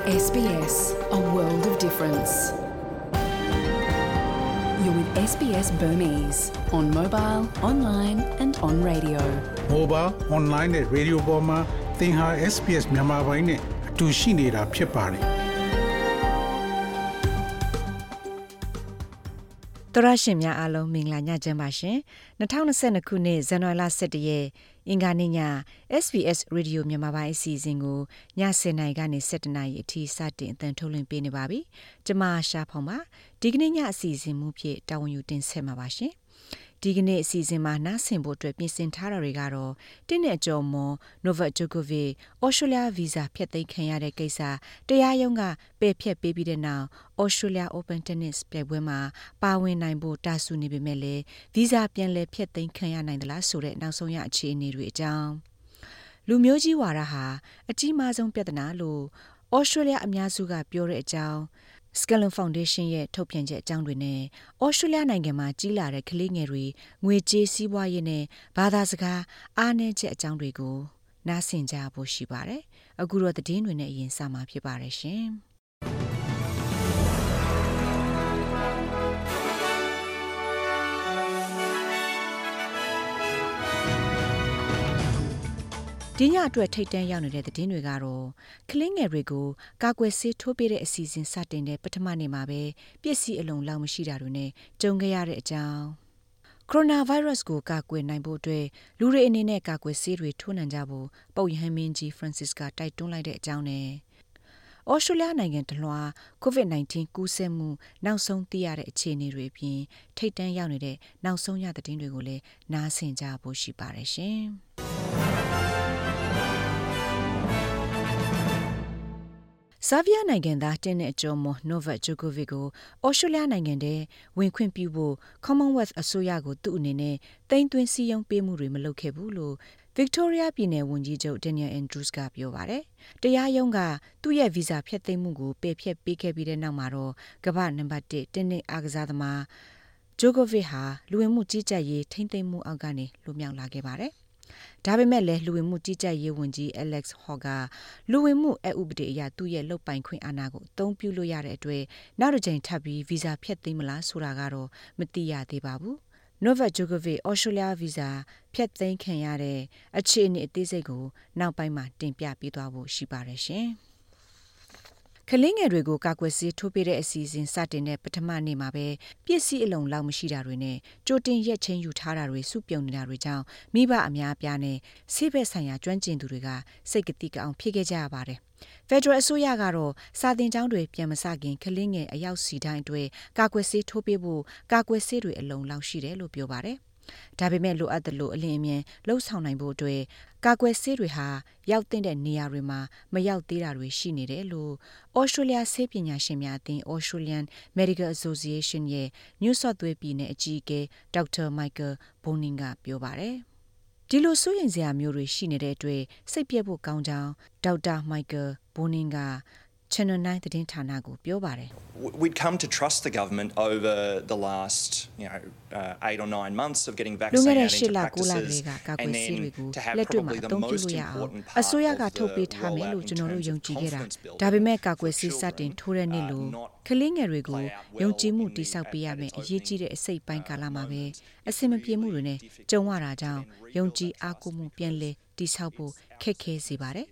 SBS, a world of difference. You're with SBS Burmese on mobile, online and on radio. Mobile, online နဲ့ radio ပေါ်မှာသင်ဟာ SBS မြန်မာပိုင်းနဲ့အတူရှိနေတာဖြစ်ပါတယ်။တရရှင်များအားလုံးမင်္ဂလာညချမ်းပါရှင်။2022ခုနှစ်ဇန်နဝါရီလ17ရက်အင်္ဂါနေ့ည SBS Radio မြန်မာပိုင်းအစီအစဉ်ကိုည10:00နာရီကနေ17:00နာရီအထိစတင်အသံထုတ်လွှင့်ပေးနေပါပြီ။ကျွန်မရှာဖောင်ပါ။ဒီကနေ့ညအစီအစဉ်မူဖြစ်တာဝန်ယူတင်ဆက်မှာပါရှင်။ဒီကနေ့အစီအစဉ်မှာနားဆင်ဖို့အတွက်ပြင်ဆင်ထားတာတွေကတော့တင်းနဲ့ကြော်မွန် Novak Djokovic ဩစတြေးလျဗီဇာဖျက်သိမ်းခံရတဲ့ကိစ္စတရားရုံးကပယ်ဖျက်ပေးပြီးတဲ့နောက်ဩစတြေးလျ Open Tennis ပြိုင်ပွဲမှာပါဝင်နိုင်ဖို့တာဆူနေပေမဲ့လည်းဗီဇာပြန်လည်ဖျက်သိမ်းခံရနိုင်သလားဆိုတဲ့နောက်ဆုံးရအခြေအနေတွေအကြောင်းလူမျိုးကြီးဝါဒဟာအကြီးမားဆုံးပြဿနာလို့ဩစတြေးလျအများစုကပြောတဲ့အကြောင်းSkellum Foundation ရဲ့ထုတ်ပြန်ချက်အကြောင်းတွေနဲ့ဩစတြေးလျနိုင်ငံမှာကြီးလာတဲ့ကလေးငယ်တွေငွေကြေးစီးပွားရေးနဲ့ဘာသာစကားအားနည်းချက်အကြောင်းတွေကိုနားဆင်ကြဖို့ရှိပါတယ်။အခုတော့သတင်းတွေနဲ့အရင်စမှာဖြစ်ပါတယ်ရှင်။ဒီညအတွက်ထိတ်တန့်ရောက်နေတဲ့သတင်းတွေကတော့ကလင်းငယ်တွေကိုကာကွယ်ဆေးထိုးပေးတဲ့အစီအစဉ်စတင်တဲ့ပထမနေ့မှာပဲပစ္စည်းအလုံးလောက်မရှိတာတွေနဲ့ကြုံခဲ့ရတဲ့အကြောင်းကိုရိုနာဗိုင်းရပ်စ်ကိုကာကွယ်နိုင်ဖို့အတွက်လူတွေအနေနဲ့ကာကွယ်ဆေးတွေထိုးနှံကြဖို့ပုပ်ရဟန်းမင်းကြီး Francis ကတိုက်တွန်းလိုက်တဲ့အကြောင်းနဲ့ဩစတြေးလျနိုင်ငံတလွှာ COVID-19 ကူးစက်မှုနောက်ဆုံးသိရတဲ့အခြေအနေတွေအပြင်ထိတ်တန့်ရောက်နေတဲ့နောက်ဆုံးရသတင်းတွေကိုလည်းနားဆင်ကြဖို့ရှိပါတယ်ရှင်။ဆာဗီးယားနိုင်ငံသားတင်းနဲ့အကျော်မွန် Novak Djokovic ကိုဩစတြေးလျနိုင်ငံထဲဝင်ခွင့်ပြုဖို့ Commonwealth အစိုးရကိုသူ့အနေနဲ့တိမ်သွင်းစည်းရုံးပေးမှုတွေမလုပ်ခဲ့ဘူးလို့ Victoria ပြည်နယ်ဝန်ကြီးချုပ် Daniel Andrews ကပြောပါတယ်။တရားရုံးကသူ့ရဲ့ဗီဇာဖျက်သိမ်းမှုကိုပယ်ဖျက်ပေးခဲ့ပြီးတဲ့နောက်မှာတော့ကမ္ဘာနံပါတ်1တင်းနဲ့အားကစားသမား Djokovic ဟာလူဝင်မှုကြီးကြပ်ရေးထိမ့်သိမ်းမှုအောက်ကနေလွတ်မြောက်လာခဲ့ပါတယ်။ဒါပေမဲ့လည်းလူဝင်မှုကြီးကြပ်ရေးဝန်ကြီး Alex Hawke ကလူဝင်မှုအဥပဒေအရသူ့ရဲ့လုပ်ပိုင်ခွင့်အာဏာကိုအသုံးပြုလို့ရတဲ့အတွက်နောက်တစ်ကြိမ်ထပ်ပြီးဗီဇာဖျက်သိမ်းမလားဆိုတာကတော့မသိရသေးပါဘူး။ Novak Djokovic ဩစတြေးလျဗီဇာဖျက်သိမ်းခံရတဲ့အခြေအနေအသေးစိတ်ကိုနောက်ပိုင်းမှာတင်ပြပေးသွားဖို့ရှိပါတယ်ရှင်။ကလင်းငယ်တွေကိုကာကွယ်ဆေးထိုးပေးတဲ့အစီအစဉ်စတင်တဲ့ပထမနေ့မှာပဲပစ္စည်းအလုံးလောက်မရှိတာတွေနဲ့ကြိုတင်ရက်ချင်းယူထားတာတွေစုပြုံနေတာတွေကြောင့်မိဘအများအပြားနဲ့ဆေးဘက်ဆိုင်ရာကျွမ်းကျင်သူတွေကစိတ်ကတိကအောင်ဖြစ်ခဲ့ကြရပါတယ်။ဖက်ဒရယ်အစိုးရကတော့စာသင်ကျောင်းတွေပြန်မစခင်ကလင်းငယ်အယောက်စီတိုင်းအတွက်ကာကွယ်ဆေးထိုးပေးဖို့ကာကွယ်ဆေးတွေအလုံးလောက်ရှိတယ်လို့ပြောပါတယ်။ဒါပေမဲ့လိုအပ်သလိုအလင်းအမြန်လှုပ်ဆောင်နိုင်ဖို့အတွက်ကာကွယ်ဆေးတွေဟာရောက်တဲ့နေရာတွေမှာမရောက်သေးတာတွေရှိနေတယ်လို့ဩစတြေးလျဆေးပညာရှင်များအသင်း Australian Medical Association ရဲ့ New South Wales ပြည်နယ်အကြီးအကဲ Dr. Michael Bonin ကပြောပါတယ်။ဒီလိုစိုးရိမ်စရာမျိုးတွေရှိနေတဲ့အတွက်စိတ်ပြည့်ဖို့ကောင်းကြောင်း Dr. Michael Bonin ကChannel 9 သတင်းဌာနကိုပြောပါတယ် We'd come to trust the government over the last 8 or 9 months of getting vaccinated into practices and then to have probably the most important part အစိုးရကထုတ်ပေးထားမယ်လို့ကျွန်တော်တို့ယုံကြည်ခဲ့တာဒါပေမဲ့ကာကွယ်ဆေးစတင်ထိုးတဲ့နေ့လို့ကလေးငယ်တွေကိုယုံကြည်မှုတိဆောက်ပေးရမယ်အရေးကြီးတဲ့အစိတ်ပိုင်းကာလမှာပဲအစင်မပြေမှုတွေနဲ့ကြုံရတာကြောင့်ယုံကြည်အားကိုးမှုပြန်လည်တိဆောက်ဖို့ခက်ခဲစေပါတယ်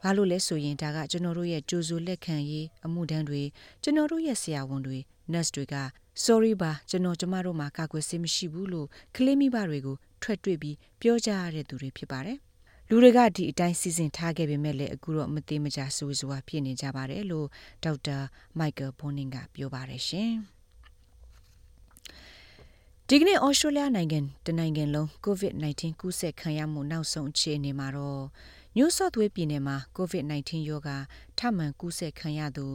ဘာလို့လဲဆိုရင်ဒါကကျွန်တော်တို့ရဲ့ကြိုးစိုးလက်ခံရေးအမှုတန်းတွေကျွန်တော်တို့ရဲ့ဆရာဝန်တွေ nurse တွေက sorry ပါကျွန်တော်ကျမတို့မှာကာကွယ်ဆေးမရှိဘူးလို့ကလေးမိဘတွေကိုထွက်တွေ့ပြီးပြောကြရတဲ့သူတွေဖြစ်ပါတယ်လူတွေကဒီအတိုင်းစီစဉ်ထားခဲ့ပေမဲ့လည်းအခုတော့မသေးမကြဆိုးစွာဖြစ်နေကြပါတယ်လို့ဒေါက်တာ Michael Bonin ကပြောပါတယ်ရှင်ဒီကနေ့ဩစတြေးလျနိုင်ငံတနိုင်ငံလုံး COVID-19 ကူးစက်ခံရမှုနောက်ဆုံးအခြေအနေမှာတော့New South Wales ပြည်နယ်မှာ COVID-19 ရောဂါထပ်မံကူးစက်ခံရသူ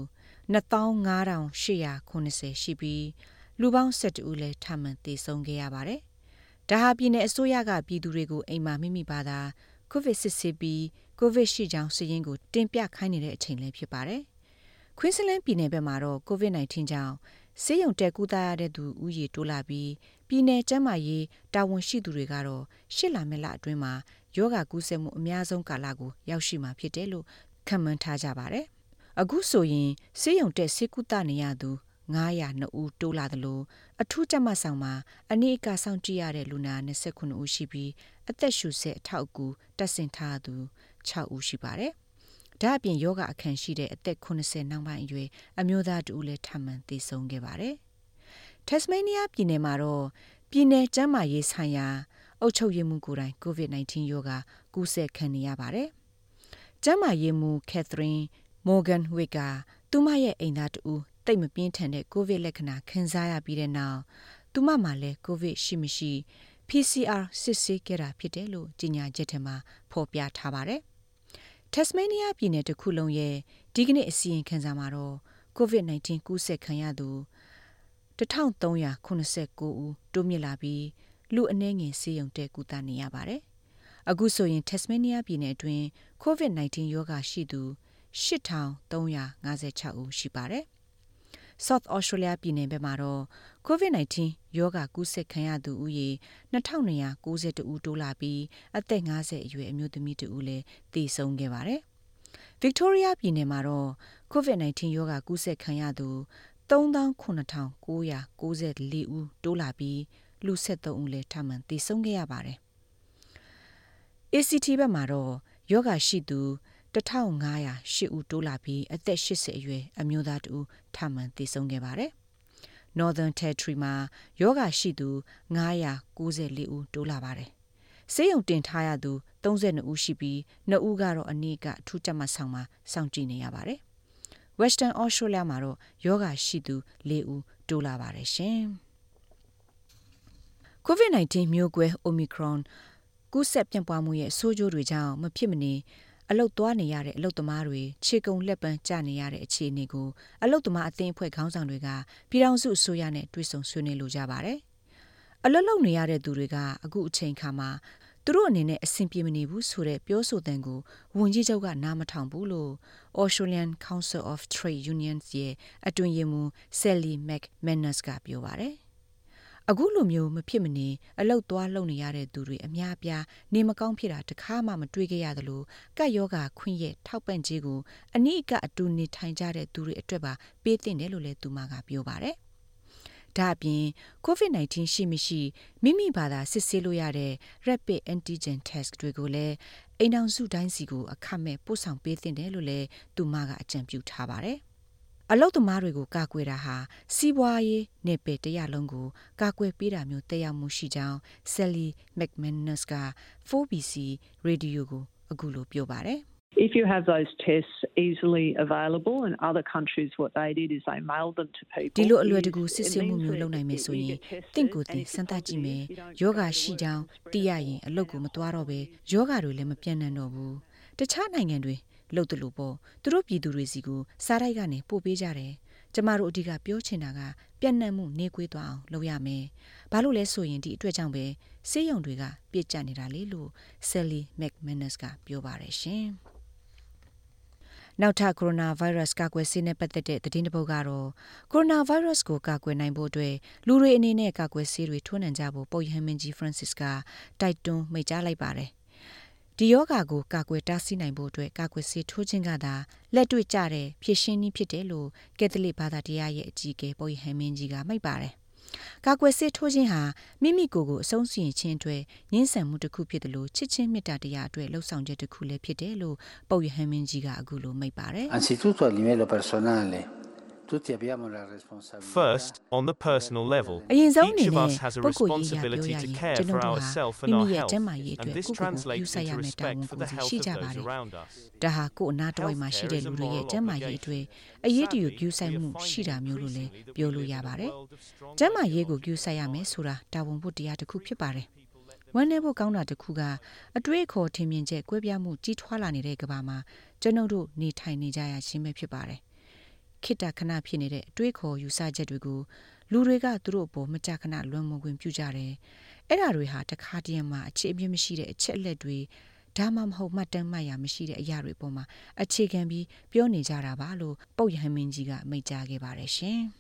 25,890ရှိပြီးလူပေါင်း12ဦးလည်းထပ်မံသေဆုံးခဲ့ရပါတယ်။ဒါဟာပြည်နယ်အစိုးရကပြည်သူတွေကိုအိမ်မှာမိမိဘာသာCOVID စစ်ဆေးပြီး COVID ရှိကြောင်းစာရင်းကိုတင်ပြခိုင်းနေတဲ့အချိန်လည်းဖြစ်ပါတယ်။ Queensland ပြည်နယ်ဘက်မှာတော့ COVID-19 ကြောင့်ဆေးရုံတက်ကူးသားရတဲ့သူဦးရေတိုးလာပြီးပြည်နယ်ကျန်းမာရေးတာဝန်ရှိသူတွေကတော့ရှစ်လအတွင်းမှာယောဂကူးစက်မှုအများဆုံးကာလကိုရောက်ရှိမှာဖြစ်တယ်လို့ခန့်မှန်းထားကြပါတယ်။ အခုဆိုရင်ဆေးရုံတက်ဆေးကုသနေရသူ902ဦးတိုးလာတယ်လို့အထူးကြပ်မတ်ဆောင်မှာအနည်းအကစောင့်ကြည့်ရတဲ့လူနာ29ဦးရှိပြီးအသက်ရှူဆက်အထောက်အကူတက်ဆင်ထားသူ6ဦးရှိပါတယ်။ဒါအပြင်ယောဂအခန့်ရှိတဲ့အသက်80နောက်ပိုင်းအရွယ်အမျိုးသားတူလည်းထပ်မံသေဆုံးခဲ့ပါတယ်။ Tasmania ပြည်နယ်မှာတော့ပြည်နယ်ကျန်းမာရေးဆိုင်ရာအုပ်ချုပ်ရေးမှူးကိုယ်တိုင် COVID-19 ရောဂါကူးစက်ခံနေရပါတယ်။ကျန်းမာရေးမှူး Catherine Morgan Wick ကသူမရဲ့အိမ်သားတူတိတ်မပြင်းထန်တဲ့ COVID လက္ခဏာခံစားရပြီးတဲ့နောက်သူမမှာလည်း COVID ရှိမရှိ PCR စစ်ဆေးခဲ့တာဖြစ်တယ်လို့ကြေညာချက်ထဲမှာဖော်ပြထားပါတယ်။ Tasmania ပြည်နယ်တစ်ခုလုံးရဲ့ဒီကနေ့အစီရင်ခံစာမှာတော့ COVID-19 ကူးစက်ခံရသူ1389ဦးတိုးမြင့်လာပြီးလူအနည်းငယ်ဆေးရုံတက်ကုသနေရပါတယ်။အခုဆိုရင် Tasmania ပြည်နယ်အတွင်း COVID-19 ရောဂါရှိသူ8356ဦးရှိပါတယ်။ South Australia ပြည်နယ်ဘက်မှာတော့ COVID-19 ရောဂါကူးစက်ခံရသူဦးရေ2292ဦးတိုးလာပြီးအသက်50အရွယ်အမျိုးသမီးတဦးလည်းသေဆုံးခဲ့ပါတယ်။ Victoria ပြည်နယ်မှာတော့ COVID-19 ရောဂါကူးစက်ခံရသူ39,994 ဦးတိုးလာပြီးလူ73ဦးလည်းထပ်မံသေဆုံးခဲ့ရပါတယ်။ ACT ဘက်မှာတော့ယောဂါရှိသူ1508ဦးတိုးလာပြီးအသက်80အရွယ်အမျိုးသားတဦးထပ်မံသေဆုံးခဲ့ပါတယ်။ Northern Territory မှာယောဂါရှိသူ994ဦးတိုးလာပါတယ်။ဆေးရုံတင်ထားရသူ32ဦးရှိပြီး2ဦးကတော့အနည်းကအထူးကြပ်မတ်ဆောင်မှာစောင့်ကြည့်နေရပါတယ်။ Western Australia မှာတော့ယောဂါရှိသူ4ဦးတိုးလာပါတယ်ရှင်။ COVID-19 မျိုးကွဲ Omicron ကူးစက်ပြန့်ပွားမှုရဲ့ဆိုးကျိုးတွေကြောင့်မဖြစ်မနေအလုတ်သွားနေရတဲ့အလုတ်သမားတွေခြေကုံလက်ပန်းကျနေရတဲ့အခြေအနေကိုအလုတ်သမားအသင်းအဖွဲ့ခေါင်းဆောင်တွေကပြည်ထောင်စုအစိုးရနဲ့တွေ့ဆုံဆွေးနွေးလိုကြပါတယ်။အလုတ်လုပ်နေရတဲ့သူတွေကအခုအချိန်ခါမှာသူတို့အနေနဲ့အဆင်ပြေမနေဘူးဆိုတဲ့ပြောဆိုတဲ့ကိုဝန်ကြီးချုပ်ကနားမထောင်ဘူးလို့ Australian Council of Trade Unions ရဲ့အတွင်းရေးမှူး Sally McManus ကပြောပါတယ်။အခုလိုမျိုးမဖြစ်မနေအလုတ်သွားလုပ်နေရတဲ့သူတွေအများအပြားနေမကောင်းဖြစ်တာတခါမှမတွေ့ခဲ့ရသလိုကပ်ရောဂါခွင့်ရဲ့ထောက်ပံ့ကြေးကိုအနည်းကအတူနေထိုင်ကြတဲ့သူတွေအတွက်ပါပေးသင့်တယ်လို့လည်းသူမကပြောပါတယ်။ဒါအပြင် COVID-19 ရှိမရှိမိမိဘာသာစစ်ဆေးလို့ရတဲ့ Rapid Antigen Test တွေကိုလည်းအိမ်အောင်စုတိုင်းစီကိုအခမဲ့ပို့ဆောင်ပေးသင့်တယ်လို့လည်းသူမကအကြံပြုထားပါတယ်။အလုတ်သမားတွေကိုကာကွယ်တာဟာစီးပွားရေးနယ်ပယ်တရလုံးကိုကာကွယ်ပေးတာမျိုးတက်ရောက်မှုရှိကြောင်း Sally McManus က 4BC Radio ကိုအခုလိုပြောပါတယ်။ If you have those tests easily available in other countries what they did is they mailed them to people ဒီလိုအလွယ်တကူစစ်ဆေးမှုမျိုးလုပ်နိုင်မယ်ဆိုရင်တင့်ကိုယ်တင်စမ်းသပ်ကြည့်မယ်ယောဂရှိကြောင်းသိရရင်အလုပ်ကိုမသွားတော့ပဲယောဂတွေလည်းမပြန့်နှံ့တော့ဘူးတခြားနိုင်ငံတွေလုပ်တယ်လို့ပေါ့သူတို့ပြည်သူတွေစီကိုစားတိုက်ကနေပို့ပေးကြတယ်ကျမတို့အဓိကပြောချင်တာကပြန့်နှံ့မှုနေကွေးသွားအောင်လုပ်ရမယ်ဘာလို့လဲဆိုရင်ဒီအတွက်ကြောင့်ပဲဆေးရုံတွေကပြည့်ကျက်နေတာလေလို့ Sally McManus ကပြောပါတယ်ရှင်နောက်ထပ်ကိုရိုနာဗိုင်းရပ်စ်ကာကွယ်ဆေးနဲ့ပတ်သက်တဲ့သတင်းတစ်ပုဒ်ကတော့ကိုရိုနာဗိုင်းရပ်စ်ကိုကာကွယ်နိုင်ဖို့အတွက်လူတွေအနေနဲ့ကာကွယ်ဆေးတွေထိုးနှံကြဖို့ပုပ်ရဟန်းမင်းကြီး Francis ကတိုက်တွန်းမိန့်ကြားလိုက်ပါတယ်ဒီယောဂါကိုကာကွယ်တားဆီးနိုင်ဖို့အတွက်ကာကွယ်ဆေးထိုးခြင်းကသာလက်တွေ့ကျတဲ့ဖြည့်ရှင်းနည်းဖြစ်တယ်လို့ကက်သလစ်ဘာသာတရားရဲ့အကြီးအကဲပုပ်ရဟန်းမင်းကြီးကမိန့်ပါတယ်ကာကွယ်ဆေးထိုးခြင်းဟာမိမိကိုယ်ကိုအဆုံးစီရင်ခြင်းအတွက်ငင်းဆန်မှုတစ်ခုဖြစ်တယ်လို့ချစ်ချင်းမေတ္တာတရားအတွက်လှုပ်ဆောင်ချက်တစ်ခုလည်းဖြစ်တယ်လို့ပုပ်ရဟန်းမင်းကြီးကအခုလိုမိန့်ပါတယ် Anzitutto a livello personale First, on the personal level, each of us has a responsibility to care for ourselves and our health, and this translates into respect for the health of those around us. ဒါဟာကိုယ်အနာတော်ဝိုင်မှာရှိတဲ့လူတွေရဲ့ကျန်းမာရေးအတွက်အရေးတယူပြုဆိုင်မှုရှိတာမျိုးလို့လည်းပြောလို့ရပါတယ်။ကျန်းမာရေးကိုပြုဆိုင်ရမယ်ဆိုတာတာဝန်ဖို့တရားတစ်ခုဖြစ်ပါတယ်။ဝမ်းနည်းဖို့ကောင်းတာတစ်ခုကအတွေ့အခေါ်ထင်မြင်ချက်ကွဲပြားမှုကြီးထွားလာနေတဲ့ကမ္ဘာမှာကျွန်ုပ်တို့နေထိုင်နေကြရခြင်းပဲဖြစ်ပါတယ်။ခိတ္တခဏဖြစ်နေတဲ့အတွေးခေါ်ယူဆချက်တွေကိုလူတွေကသူတို့အပေါ်မကြာခဏလွန်မွန်ခွင့်ပြုကြတယ်။အဲ့ဒါတွေဟာတခါတည်းမှာအခြေအမြစ်မရှိတဲ့အချက်အလက်တွေဒါမှမဟုတ်မှတ်တမ်းမှတ်ရမရှိတဲ့အရာတွေပေါ်မှာအခြေခံပြီးပြောနေကြတာပါလို့ပုပ်ရဟန်းမင်းကြီးကမိန့်ကြားခဲ့ပါတယ်ရှင်။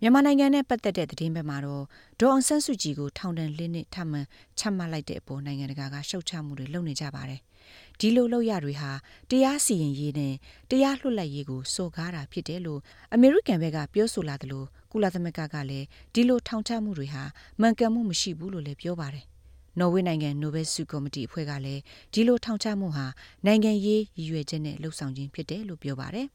မြန်မာနိုင်ငံနဲ့ပတ်သက်တဲ့သတင်းဘက်မှာတော့ဒေါ်အောင်ဆန်းစုကြည်ကိုထောင်ဒဏ်၄နှစ်ထပ်မံချမှတ်လိုက်တဲ့အပေါ်နိုင်ငံတကာကရှုတ်ချမှုတွေလုပ်နေကြပါတယ်။ ဒီလိုလောက်ရတွေဟာတရားစီရင်ရေးနဲ့တရားလွှတ်လပ်ရေးကိုစော်ကားတာဖြစ်တယ်လို့အမေရိကန်ဘက်ကပြောဆိုလာတယ်လို့ကုလသမဂ္ဂကလည်းဒီလိုထောင်ချမှုတွေဟာမှန်ကန်မှုမရှိဘူးလို့လည်းပြောပါတယ်နော်ဝေနိုင်ငံနိုဘယ်ဆုကော်မတီအဖွဲ့ကလည်းဒီလိုထောင်ချမှုဟာနိုင်ငံရေးရည်ရွယ်ချက်နဲ့လှုပ်ဆောင်ခြင်းဖြစ်တယ်လို့ပြောပါတယ်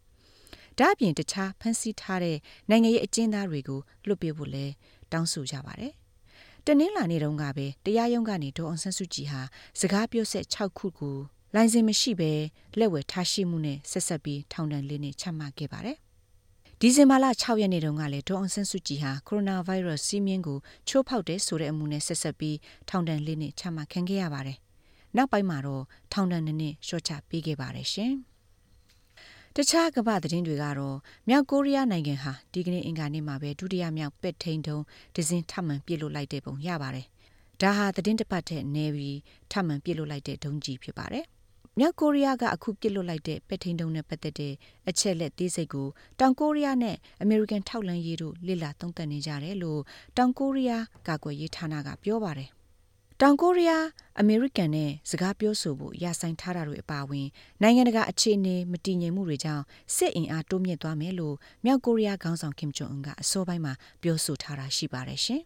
ဒါအပြင်တခြားဖန်ဆီးထားတဲ့နိုင်ငံရေးအကျဉ်းသားတွေကိုလွှတ်ပေးဖို့လည်းတောင်းဆိုကြပါတယ်တနင်္လာနေ့တုန်းကပဲတရားရုံးကနေဒေါ်အောင်ဆန်းစုကြည်ဟာစကားပြောဆက်6ခုကိုလိုင်စင်မရှိဘဲလက်ဝယ်ထားရှိမှုနဲ့ဆက်ဆက်ပြီးထောင်ဒဏ်၄နှစ်ချမှတ်ခဲ့ပါတယ်ဒီဇင်ဘာလ6ရက်နေ့တုန်းကလည်းဒေါ်အောင်ဆန်းစုကြည်ဟာကိုရိုနာဗိုင်းရပ်စ်စီးမြင်းကိုချိုးဖောက်တဲ့ဆိုတဲ့အမှုနဲ့ဆက်ဆက်ပြီးထောင်ဒဏ်၄နှစ်ချမှတ်ခံခဲ့ရပါတယ်နောက်ပိုင်းမှာတော့ထောင်ဒဏ်2နှစ်လျှော့ချပေးခဲ့ပါတယ်ရှင်တခြားကမ္ဘာသတင်းတွေကတော့မြောက်ကိုရီးယားနိုင်ငံဟာဒီကနေ့အင်္ဂါနေ့မှာပဲဒုတိယမြောက်ပက်ထိန်တုံးဒဇင်ထပ်မံပြစ်လွတ်လိုက်တဲ့ပုံရပါတယ်ဒါဟာသတင်းတစ်ပတ်ထက်နေပြီးထပ်မံပြစ်လွတ်လိုက်တဲ့ဒုံးကြီးဖြစ်ပါတယ်မြောက်ကိုရီးယားကအခုပြစ်လွတ်လိုက်တဲ့ပက်ထိန်တုံးနဲ့ပတ်သက်တဲ့အချက်လက်သေးစိတ်ကိုတောင်ကိုရီးယားနဲ့အမေရိကန်ထောက်လှမ်းရေးတို့လေ့လာသုံးသပ်နေကြတယ်လို့တောင်ကိုရီးယားကာကွယ်ရေးဌာနကပြောပါတယ်တောင်ကိုရီးယားအမေရိကန်နဲ့စကားပြောဆိုဖို့ယာဆိုင်ထားတာတွေအပါအဝင်နိုင်ငံတကာအခြေအနေမတည်ငြိမ်မှုတွေကြောင့်စစ်အင်အားတိုးမြင့်သွားမယ်လို့မြောက်ကိုရီးယားခေါင်းဆောင်ကင်ဂျုံအွန်ကအစောပိုင်းမှာပြောဆိုထားတာရှိပါတယ်ရှင်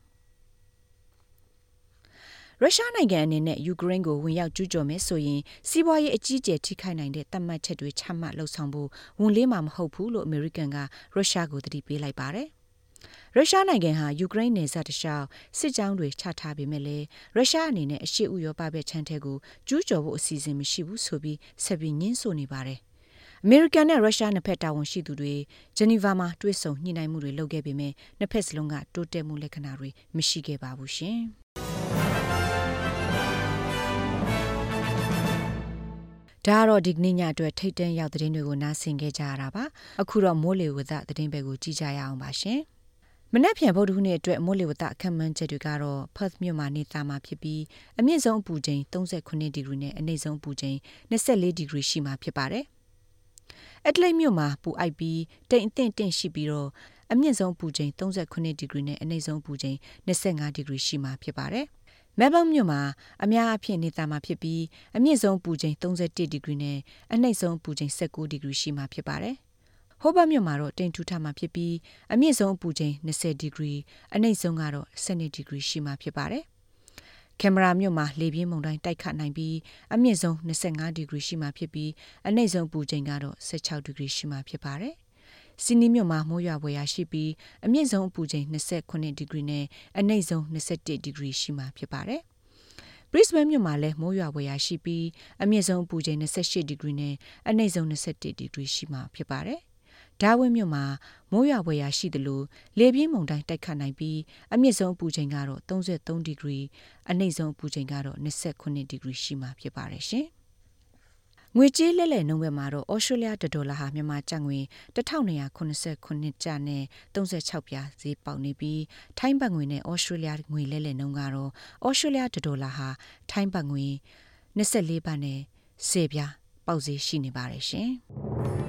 ရုရှားနိုင်ငံအနေနဲ့ယူကရိန်းကိုဝင်ရောက်ကျူးကျော်မယ်ဆိုရင်စီးပွားရေးအကြီးအကျယ်ထိခိုက်နိုင်တဲ့သတ်မှတ်ချက်တွေချမှတ်လှုပ်ဆောင်ဖို့ဝန်လေးမှာမဟုတ်ဘူးလို့အမေရိကန်ကရုရှားကိုသတိပေးလိုက်ပါတယ်ရုရှားနိုင်ငံဟာယူကရိန်းနယ်စပ်တလျှောက်စစ်ကြောင်းတွေချထားပေမဲ့လည်းရုရှားအနေနဲ့အရှေ့ဥရောပဘက်ခြမ်းထဲကိုကျူးကျော်ဖို့အစီအစဉ်မရှိဘူးဆိုပြီးဆက်ပြီးညှင်းဆိုနေပါတယ်အမေရိကန်နဲ့ရုရှားနှစ်ဖက်တာဝန်ရှိသူတွေဂျနီဗာမှာတွေ့ဆုံညှိနှိုင်းမှုတွေလုပ်ခဲ့ပေမဲ့နှစ်ဖက်စလုံးကတိုးတက်မှုလက္ခဏာတွေမရှိခဲ့ပါဘူးရှင်ဒါတော့ဒီကနေ့ညအတွက်ထိတ်တန့်ရောက်သတင်းတွေကိုနားဆင်ခဲ့ကြရတာပါအခုတော့မိုးလေဝသသတင်းပဲကိုကြည့်ကြရအောင်ပါရှင်မနက်ဖြန်ဗုဒ္ဓဟူးနေ့အတွက်မိုးလေဝသအခန့်မှန်းချက်တွေကတော့ Perth မြို့မှာနေသားမှာဖြစ်ပြီးအမြင့်ဆုံးအပူချိန်38ဒီဂရီနဲ့အနိမ့်ဆုံးအပူချိန်24ဒီဂရီရှိမှာဖြစ်ပါတယ်အက်ဒလိတ်မြို့မှာပူအိုက်ပြီးတိမ်အထင်တင့်ရှိပြီးတော့အမြင့်ဆုံးအပူချိန်38ဒီဂရီနဲ့အနိမ့်ဆုံးအပူချိန်25ဒီဂရီရှိမှာဖြစ်ပါတယ်မဲလ်ဘုန်းမြို့မှာအများအပြားနေသားမှာဖြစ်ပြီးအမြင့်ဆုံးပူချိန်31ဒီဂရီနဲ့အနိမ့်ဆုံးပူချိန်19ဒီဂရီရှိမှာဖြစ်ပါတယ်။ဟိုဘတ်မြို့မှာတော့တိမ်ထူးထမှာဖြစ်ပြီးအမြင့်ဆုံးပူချိန်20ဒီဂရီအနိမ့်ဆုံးကတော့12ဒီဂရီရှိမှာဖြစ်ပါတယ်။ကင်မရာမြို့မှာလေပြင်းမုန်တိုင်းတိုက်ခတ်နိုင်ပြီးအမြင့်ဆုံး25ဒီဂရီရှိမှာဖြစ်ပြီးအနိမ့်ဆုံးပူချိန်ကတော့16ဒီဂရီရှိမှာဖြစ်ပါတယ်။စီနီမြို့မှာမိုးရွာဖွယ်ရာရှိပြီးအမြင့်ဆုံးအပူချိန်28ဒီဂရီနဲ့အနိမ့်ဆုံး21ဒီဂရီရှိမှာဖြစ်ပါတယ်။ Brisbane မြို့မှာလည်းမိုးရွာဖွယ်ရာရှိပြီးအမြင့်ဆုံးအပူချိန်28ဒီဂရီနဲ့အနိမ့်ဆုံး21ဒီဂရီရှိမှာဖြစ်ပါတယ်။ဒါဝင်းမြို့မှာမိုးရွာဖွယ်ရာရှိသလိုလေပြင်းမုန်တိုင်းတိုက်ခတ်နိုင်ပြီးအမြင့်ဆုံးအပူချိန်ကတော့33ဒီဂရီအနိမ့်ဆုံးအပူချိန်ကတော့29ဒီဂရီရှိမှာဖြစ်ပါတယ်ရှင်။ငွေကြေးလဲလှယ်နှုန်းဘက်မှာတော့ဩစတြေးလျဒေါ်လာဟာမြန်မာကျပ်ငွေ1289ကျပ်နဲ့36ပြားဈေးပေါက်နေပြီးထိုင်းဘတ်ငွေနဲ့ဩစတြေးလျငွေလဲလှယ်နှုန်းကတော့ဩစတြေးလျဒေါ်လာဟာထိုင်းဘတ်ငွေ24ဘတ်နဲ့10ပြားပေါက်ဈေးရှိနေပါတယ်ရှင်။